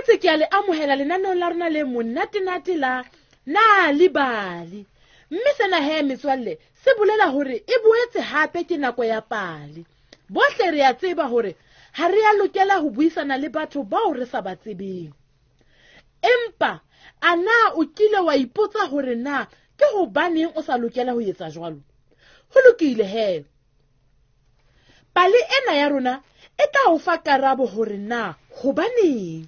boetse ke a le amohela lenaneong la rona le monatenate la Nal'ibali. Mme sena he metswalle se bolela hore e boetse hape ke nako ya pale. Bohle re a tseba hore ha re a lokela ho buisana le batho bao re sa ba tsebeng. Empa a na o kile wa ipotsa hore na ke hobaneng o sa lokela ho etsa jwalo? Ho lokile he. Pale ena ya rona e tla o fa karabo hore na hobaneng.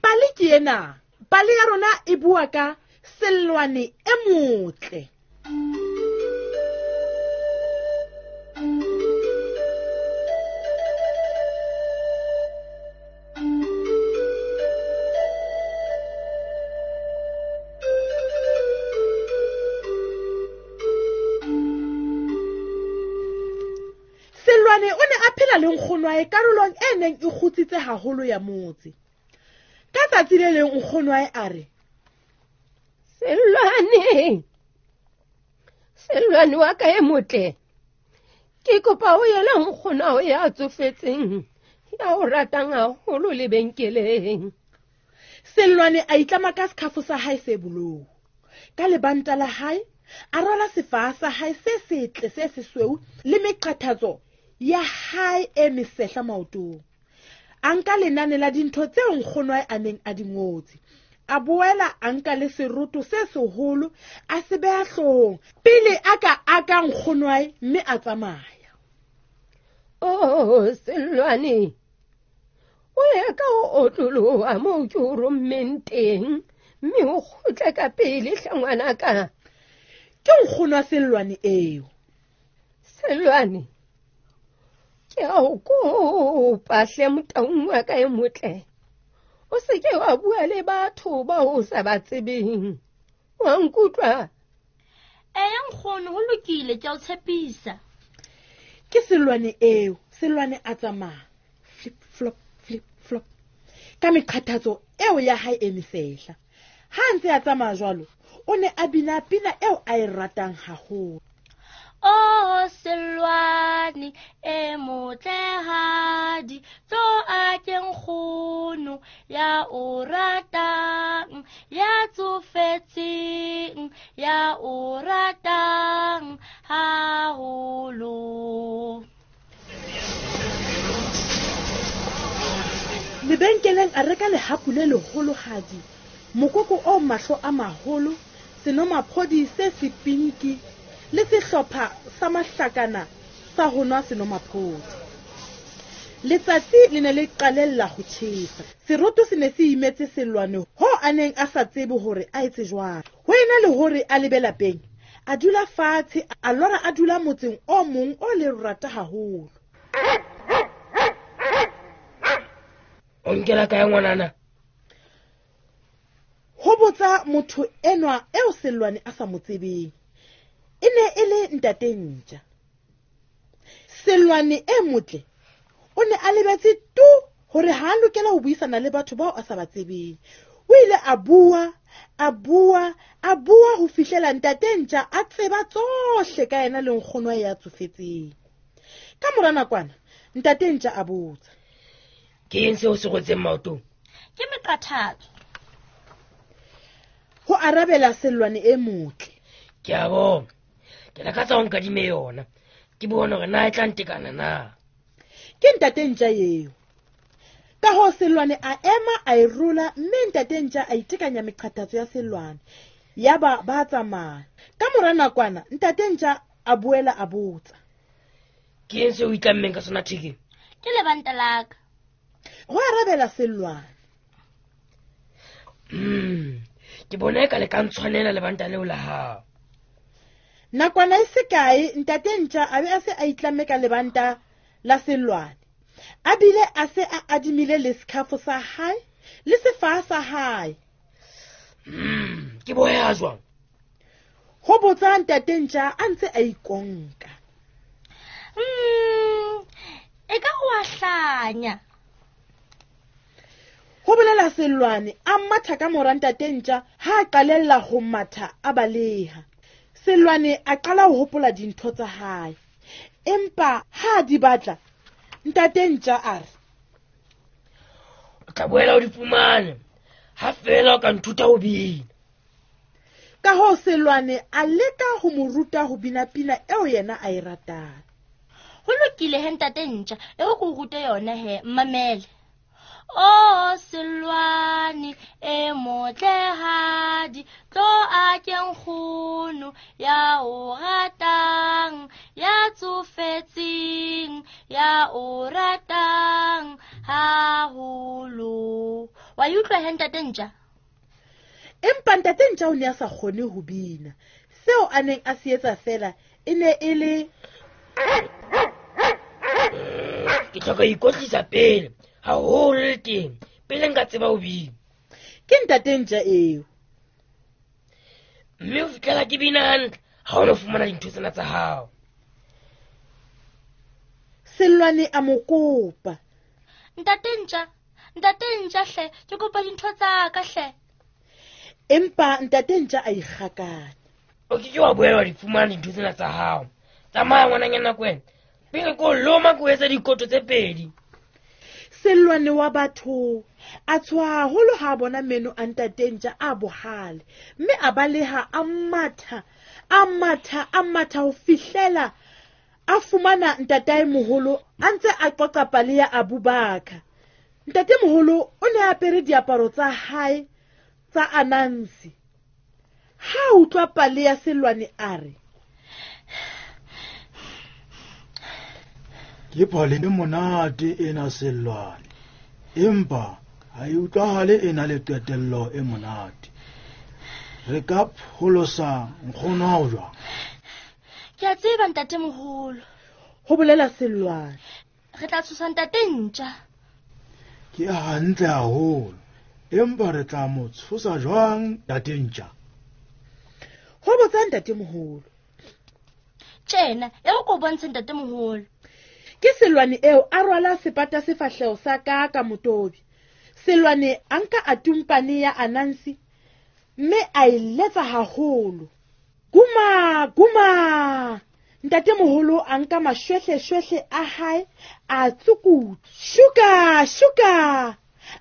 Pale ke ena. Pale ya rona e bua ka Sellwane e motle. Sellwane o ne a phela le nkgonwae karolong e neng e kgutsitse haholo ya motse. Ka tsatsi le leng nkgonwae a re, Sellwane, Sellwane wa ka e motle, ke kopa o yela nkgonao ya tsofetseng ya o ratang haholo lebenkeleng. Sellwane a itlama ka sekhafo sa hae se bolou. Ka lebanta la hae a rwala sefaha sa hae se setle se sesweu le meqathatso ya hae e mesehla maotong. A nka lenane la dintho tseo nkgonwae a neng a di ngotse. A boela a nka le seroto se seholo a se beha hloohong pele a ka aka nkgonwae mme a tsamaya. Oh, Sellwane, o ye ka ho otloloha moo ke o rommeng teng mme o kgutle ka pele hle ngwanaka. Ke nkgonwa Sellwane eo. Sellwane, ke a o kopa hle motaung wa ka e motle. O se ke wa bua le batho bao o sa ba tsebeng. Wa nkutlwa? Eya nkgono, ho lokile, ke a o tshepisa. Ke Sellwane eo. Sellwane a tsamaya flip flop flip flop ka meqhathatso eo ya hae e mesehla. Ha a ntse a tsamaya jwalo, o ne a bina pina eo a e ratang haholo. Oh, Sellwane e motlehadi, tlo a ke nkgono ya o ratang, ya tsofetseng, ya o ratang haholo. Lebenkeleng a reka lehapu le leholohadi, mokoko o mahlo a maholo, senomaphodi se sepinki le sehlopha sa mahlakana sa ho nwa senomaphodi. Letsatsi le ne le qalella ho tjhesa. Seroto se ne se imetse Sellwane ho a neng a sa tsebe hore a etse jwang. Ho ena le hore a lebe lapeng, a dula fatshe, a lora a dula motseng o mong o lerata haholo. O nkela kae ngwanana? Ho botsa motho enwa eo Sellwane a sa mo tsebeng. E ne e le ntate Ntja. Sellwane e motle o ne a lebetse tu hore ha a lokela ho buisana le batho bao a sa ba tsebeng. O ile a bua, a bua, a bua ho fihlela ntate Ntja a tseba tsohle ka yena le nkgono ya tsofetseng. Ka mora nakwana, ntate Ntja a botsa, Ke eng seo se rwetseng maotong? Ke meqathatso. Ho arabela Sellwane e motle. Ke a bona. Ke lakatsa ho nkadime yona. Ke bone hore na e tla ntekana na. Ke ntate Ntja eo. Ka hoo Sellwane a ema a e rola mme ntate Ntja a itekanya meqathatso ya Sellwane. Yaba ba tsamaya. Ka mora nakwana ntate Ntja a boela a botsa, Ke eng seo o itlammeng ka sona thekeng? Ke lebanta la ka. Ho arabela Sellwane. Ke bona eka le ka ntshwanela lebanta leo la hao. Nakwana e se kae ntate Ntja a be a se a itlamme ka lebanta la Sellwane. A bile a se a adimile le sekhafo sa hae le sefaha sa hae. Ke boya jwang? Ho botsa ntate Ntja a ntse a ikonka. E ka o a hlanya. Ho bolela Sellwane a matha ka mora ntate Ntja ha a qalella ho matha a baleha. Sellwane a qala ho hopola dintho tsa hae. Empa ha a di batla, ntate Ntja a re, O tla boela o di fumane ha feela o ka nthuta ho bina. Ka hoo Sellwane a leka ho mo ruta ho bina pina eo yena a e ratang. Ho lokile he ntate Ntja, e re ke o rute yona he, mmamele. O Sellwane e motlehadi, tlo a ke nkgono ya o ratang, ya tsofetseng, ya o ratang haholo. Wa e utlwa he ntate Ntja? Empa ntate Ntja o ne a sa kgone ho bina. Seo a neng a se etsa feela e ne e le ke hloka ho ikwetlisa pele haholo le teng pele nka tseba ho bina. Ke ntate Ntja eo. Mme ho fihlela ke bina hantle ha o no fumana dintho tsena tsa hao. Sellwane a mo kopa. Ntate Ntja, ntate Ntja hle, ke kopa dintho tsa ka hle. Empa ntate Ntja a ikgakanya. O ke ke wa boela wa di fumana dintho tsena tsa hao. Tsamaya ngwananyana kwena, pele ko loma ko etsa dikoto tse pedi. Sellwane wa batho a tshoha haholo ha a bona meno a ntate Ntja a bohale, mme a baleha a matha, a matha, a matha ho fihlela a fumana ntataemoholo a ntse a qoqa pale ya Abubakar. Ntatemoholo o ne a apere diaparo tsa hae tsa Anansi. Ha a utlwa pale ya Sellwane a re, Ke pale e monate ena Sellwane, empa ha e utlwahale e na le qetello e monate. Re ka pholosa nkgono hao jwang? Ke a tseba ntatemoholo, ho bolela Sellwane. Re tla tshosa ntate Ntja. Ke hantle haholo, empa re tla mo tshosa jwang ntate Ntja? Ho botsa ntatemoholo. Tjena, e re ko bontshe ntatemoholo. Ke Sellwane eo a rwala sepata sefahleho sa ka ka motobi. Sellwane a nka atumpane ya Anansi mme a e letsa haholo. Guma, guma. Ntatemoholo a nka mashwehleshwehle a hae a tsukutla. Shuka, shuka.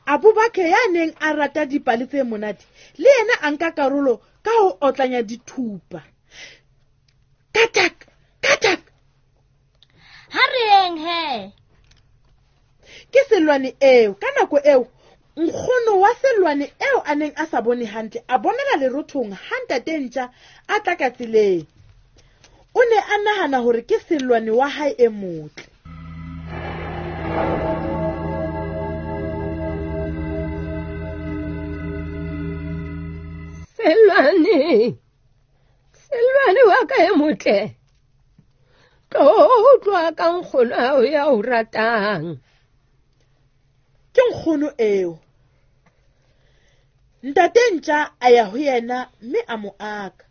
Abubakar ya neng a rata dipale tse monate le yena a nka karolo ka ho otlanya dithupa. Katak, katak. Ha re yeng he. Ke Sellwane eo. Ka nako eo nkgono wa Sellwane eo a neng a sa bone hantle a bonela lerothong ha ntate Ntja a tla ka tseleng. O ne a nahana hore ke Sellwane wa hae e motle. Sellwane, Sellwane wa ka e motle, tlo utlwa ka nkgono hao ya o ratang. Ke nkgono eo. Ntate Ntja a ya ho yena mme a mo aka.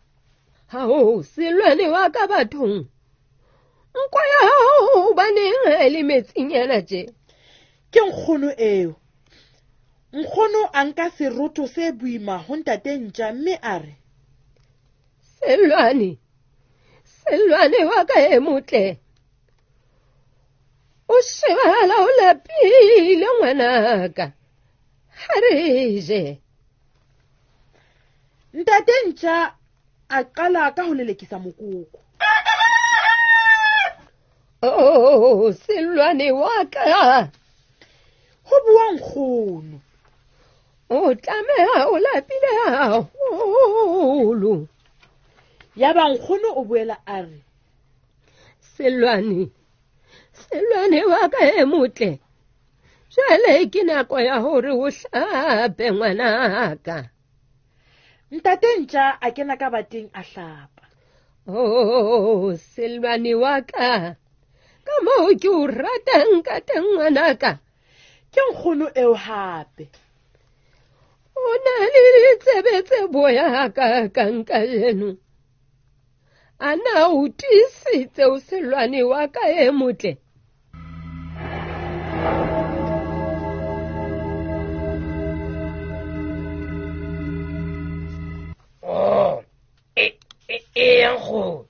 Hao, Sellwane wa ka bathong, nko ya hao hobaneng ha e le metsinyana tje? Ke nkgono eo. Nkgono a nka seroto se boima ho ntate Ntja mme a re, Sellwane, Sellwane wa ka e motle, o shebahala o lapile ngwanaka, ha re je. Ntate Ntja a qala ka ho lelekisa mokoko. Oh, Sellwane wa ka, ho bua nkgono, o tlameha o lapile haholo. Yaba nkgono o boela a re, Sellwane, Sellwane wa ka e motle, jwale ke nako ya hore o hlape ngwanaka. Ntate Ntja a kena ka bateng a hlapa. Oh, Sellwane wa ka, ka moo ke o ratang ka teng ngwanaka. Ke nkgono eo hape. O na le ditsebe tse boya hakakang kajeno. A na o tiisitse o Sellwane wa ka e motle? Oh, e nkgono.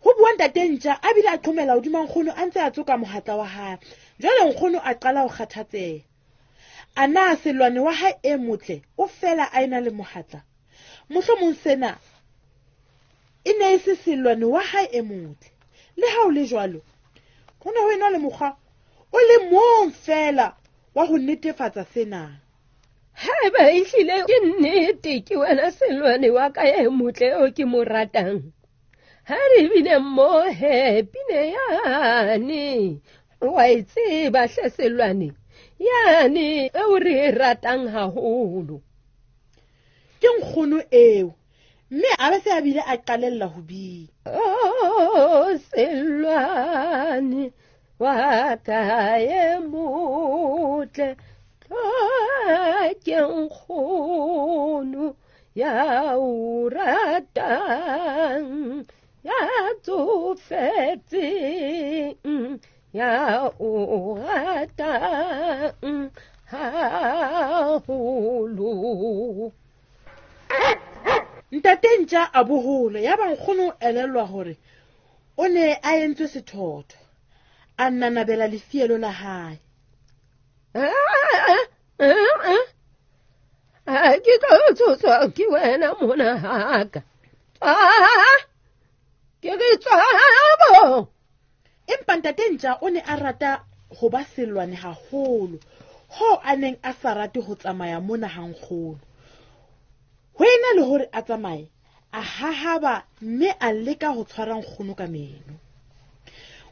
Ho bua ntate Ntja a bile a qhomela hodima nkgono a ntse a tsoka mohatla wa hae. Jwale nkgono a qala ho kgathatseha. A na Sellwane wa hae e motle o fela a ena le mohatla? Mohlomong sena e ne e se Sellwane wa hae e motle. Le ha o le jwalo, ho ne ho ena le mokgwa o le mong fela wa ho netefatsa sena. Haeba ehlile ke nnete ke wena Sellwane wa ka e motle eo ke mo ratang, ha re bine mmoho pine yane, wa e tseba hle Sellwane, yane eo re e ratang haholo. Ke nkgono eo, mme a be se a bile a qalella ho bina. Oh, Sellwane wa ka e motle, ke nkgono ya o ratang, ya tsofetseng, ya o ratang haholo. Ntate Ntja a bohola, yaba nkgono o elellwa hore o ne a entswe sethotho. A nanabela lefielo la hae. Ke tlo tshoswa ke wena mona haka. Ke re tswabo. Empa Ntate Ntja o ne a rata ho ba Sellwane haholo, hoo a neng a sa rate ho tsamaya mona ha nkgono. Ho ena le hore a tsamaye, a hahaba mme a leka ho tshwara nkgono ka meno.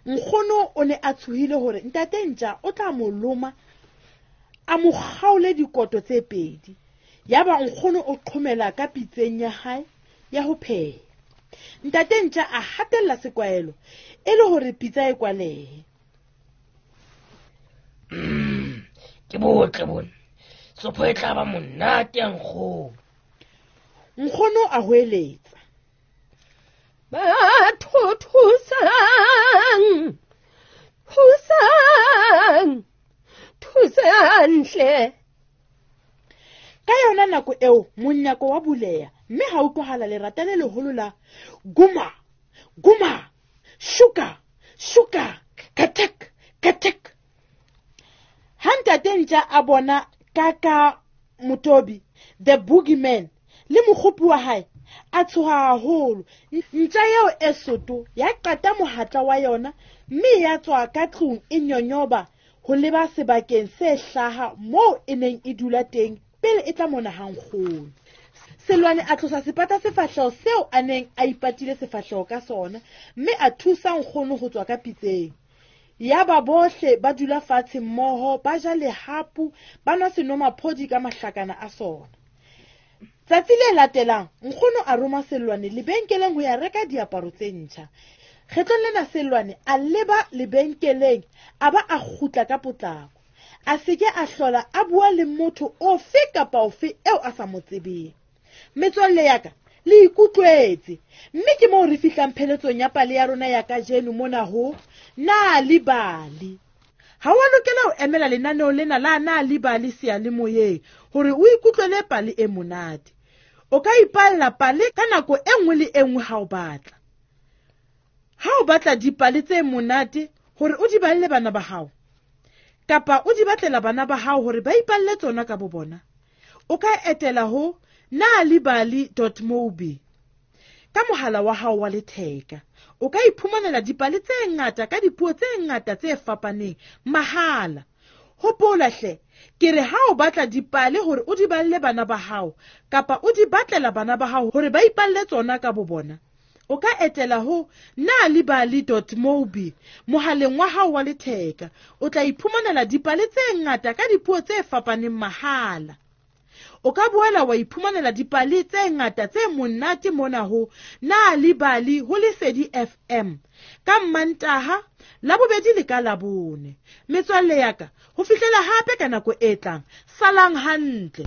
Nkgono o ne a tshohile hore Ntate Ntja o tla mo loma, a mo kgaole dikoto tse pedi. Yaba nkgono o qhomela ka pitseng ya hae ya ho pheha. Ntate Ntja a hatella sekwahelo e le hore pitsa e kwalehe. Ke botle bona. Sopho e tla ba monate ya nkgono. Nkgono a hoeletsa. Batho thusang, thusang, thusang hle. Ka yona nako eo monyako wa buleha, mme ha utlwahala lerata le leholo la guma, guma, shuka, shuka, katek, katek. Ha Ntate Ntja a bona Kaka Motobi, the boogeyman, le mokgopi wa hae, a tshoha haholo. Ntja eo e soto ya qata mohatla wa yona, mme ya tswa ka tlung e nyonyoba ho leba sebakeng se hlaha moo e neng e dula teng pele e tla mona ha nkgono. Sellwane a tlosa sepata sefahleho seo a neng a ipatile sefahleho ka sona, mme a thusa nkgono ho tswa ka pitseng. Yaba bohle ba dula fatshe mmoho, ba ja lehapu, ba nwa senomaphodi ka mahlakana a sona. Tsatsi le latelang, nkgono a roma Sellwane lebenkeleng ho ya reka diaparo tse ntjha. Kgetlong lena Sellwane a leba lebenkeleng, a ba a kgutla ka potlako. A se ke a hlola a bua le motho ofe kapa ofe eo a sa mo tsebeng. Metswalle ya ka, le ikutlwetse, mme ke moo re fihlang pheletsong ya pale ya rona ya kajeno mona ho Nal'ibali. Ha wa lokela ho emela lenaneo lena la Nal'ibali seyalemoyeng hore o ikutlwele pale e monate. O ka ipalla pale ka nako e nngwe le e nngwe ha o batla. Ha o batla dipale tse monate hore o di balle bana ba hao, kapa o di batlela bana ba hao hore ba ipalle tsona ka bo bona, o ka etela ho nalibali.mobi ka mohala wa hao wa letheka. O ka iphumanela dipale tse ngata ka dipuo tse ngata tse fapaneng mahala. Hopola hle, ke re ha o batla dipale hore o di balle bana ba hao, kapa o di batlela bana ba hao hore ba ipalle tsona ka bo bona, o ka etela ho nalibali.mobi mohaleng wa hao wa letheka. O tla iphumanela dipale tse ngata ka dipuo tse fapaneng mahala. O ka boela wa iphumanela dipale tse ngata tse monate mona ho Nal'ibali ho Lesedi FM ka Mmantaha, Labobedi le ka Labone. Metswalle ya ka, ho fihlela hape ka nako e tlang, salang hantle.